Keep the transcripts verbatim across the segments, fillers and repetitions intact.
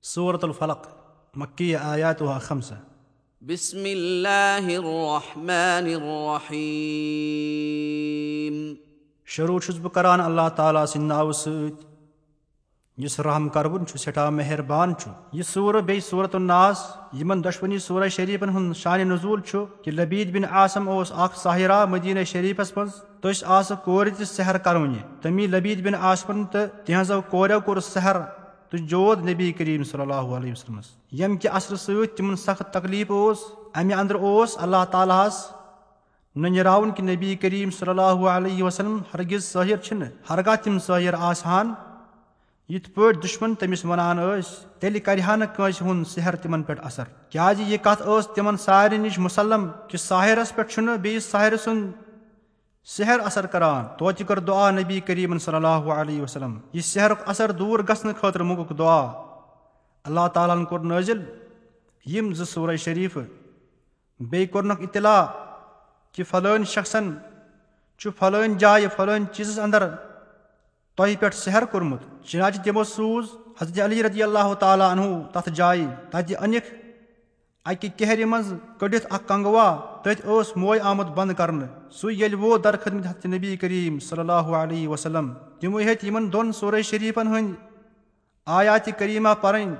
سورة الفلق، مکیہ، آیاتها خمسہ۔ بسم اللہ الرحمن الرحیم۔ شروع چھُس بہٕ کران اللہ تعالیٰ سٕنٛدِ ناوٕ سۭتۍ، یُس رحم کروُن چھُ، سٮ۪ٹھاہ مہربان چھُ۔ یہِ سورہ بیٚیہِ سورۃ الناس، یِمن دۄشوٕنی سورہ شریفن ہُنٛد شانِ نزول چھُ کہِ لبید بن عاصم اوس اکھ ساحرہ مدینہ شریفس منٛز۔ تٔمِس آسہٕ کورِ تہِ سحر کرونہِ۔ تٔمی لبید بن عاصمن تہٕ تِہنٛزو کورٮ۪و کوٚر سحر تہٕ جود نبی کریم صلی اللہ علیہ وسلمس، ییٚمہِ کہِ اثرٕ سۭتۍ تِمن سخت تکلیف اوس۔ امہِ اندرٕ اوس اللہ تعالیٰ ہس ننیراوُن کہِ نبی کریم صلی اللہ علیہ وسلم ہرگز ساحر چھِنہٕ، ہرگاہ تِم ساحر آسہٕ ہن، یِتھ پٲٹھۍ دُشمن تٔمِس ونان ٲسۍ، تیٚلہِ کرِ ہا نہٕ کٲنٛسہِ ہُنٛد سحر تِمن پٮ۪ٹھ اثر، کیازِ یہِ کتھ ٲس تِمن سارنٕے نِش مسلم کہِ ساحرس پٮ۪ٹھ چھُنہٕ بیٚیِس ساحرٕ سُنٛد سحر اثر کران۔ توتہِ کٔر دعا نبی کریمن صلی اللہ علیہ وسلم، یہِ سحرُک اثر دوٗر گژھنہٕ خٲطرٕ منٛگُکھ دعا۔ اللہ تعالیٰ ہن کوٚر نٲزِل یِم زٕ سورہ شریفہٕ۔ بیٚیہِ کوٚرنکھ اطلاع کہِ فلٲنۍ شخصن چھُ فلٲنۍ جایہِ فلٲنۍ چیٖزس اندر تۄہہِ پٮ۪ٹھ سحر کوٚرمُت۔ چنانچہ تِمو سوٗز حضرت علی رضی اللہ تعالیٰ عنہ تتھ جایہِ۔ تتہِ أنِکھ اکہِ کہرِ منٛز کٔڑِتھ اکھ کنگوا، تٔتھۍ اوس موے آمُت بند کرنہٕ۔ سُے ییٚلہِ ووت در خدمت حضرت نبی کریم صلی اللہ علیہ وسلم۔ تِمو ہیٚتۍ یِمن دۄن سورہ شریفن ہٕنٛدۍ آیاتِ کریمہ پرٕنۍ۔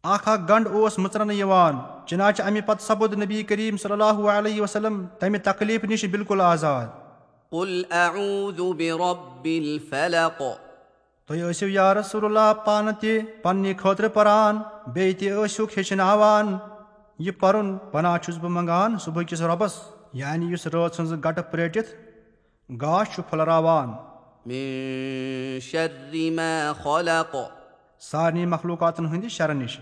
اکھ اکھ گنڈ اوس مٕژرنہٕ یِوان۔ چنانچہ امہِ پتہٕ سپُد نبی کریم صلی اللہ علیہ وسلم تمہِ تکلیف نِش بالکل آزاد۔ قل اعوذ برب الفلق۔ تُہۍ ٲسِو یا رسول اللہ پانہٕ تہِ پننہِ خٲطرٕ پران، بیٚیہِ تہِ ٲسِوکھ ہیٚچھناوان۔ یہِ پرُن پناہ چھُس بہٕ منگان صبحٕکِس رۄبس، یعنی یُس رٲژ ہٕنٛز گٹہٕ پرٛیٹِتھ گاش چھُ پھٔلراوان۔ من شر ما خلق۔ سارنٕے مخلوقاتن ہٕنٛدِ شرٕ نِش۔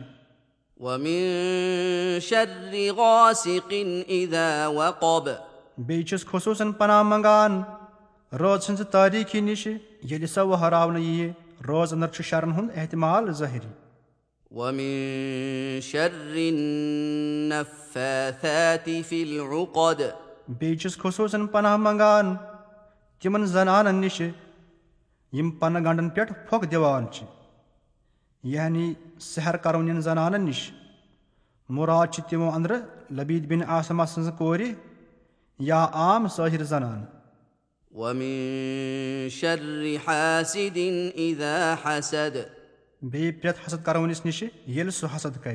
ومن شر غاسق اذا وقب۔ بیٚیہِ چھُس خصوٗصن پناہ منگان رٲژ ہٕنٛزِ تٲریٖکی نِش، ییٚلہِ سۄ وہراونہٕ یِیہِ۔ رٲژ اندر چھُ شرن ہُنٛد احتمال ظٲہری۔ ومن شر النفاثات في العقد۔ بیٚیہِ چھُس خصوٗصن پناہ منگان تِمن زنانن نِش یِم پنہٕ گنڈن پٮ۪ٹھ پھۄکھ دِوان چھِ، یعنی سحر کرونین زنانن نِش۔ مراد چھِ تِمو اندرٕ لبید بن عاصمہ سٕنٛزٕ کورِ یا عام سٲحر زنانہٕ۔ ومن شر حاسد اذا حسد۔ بیٚیہِ پرٛٮ۪تھ حسد کرونِس نِش ییٚلہِ سُہ حسد کرِ۔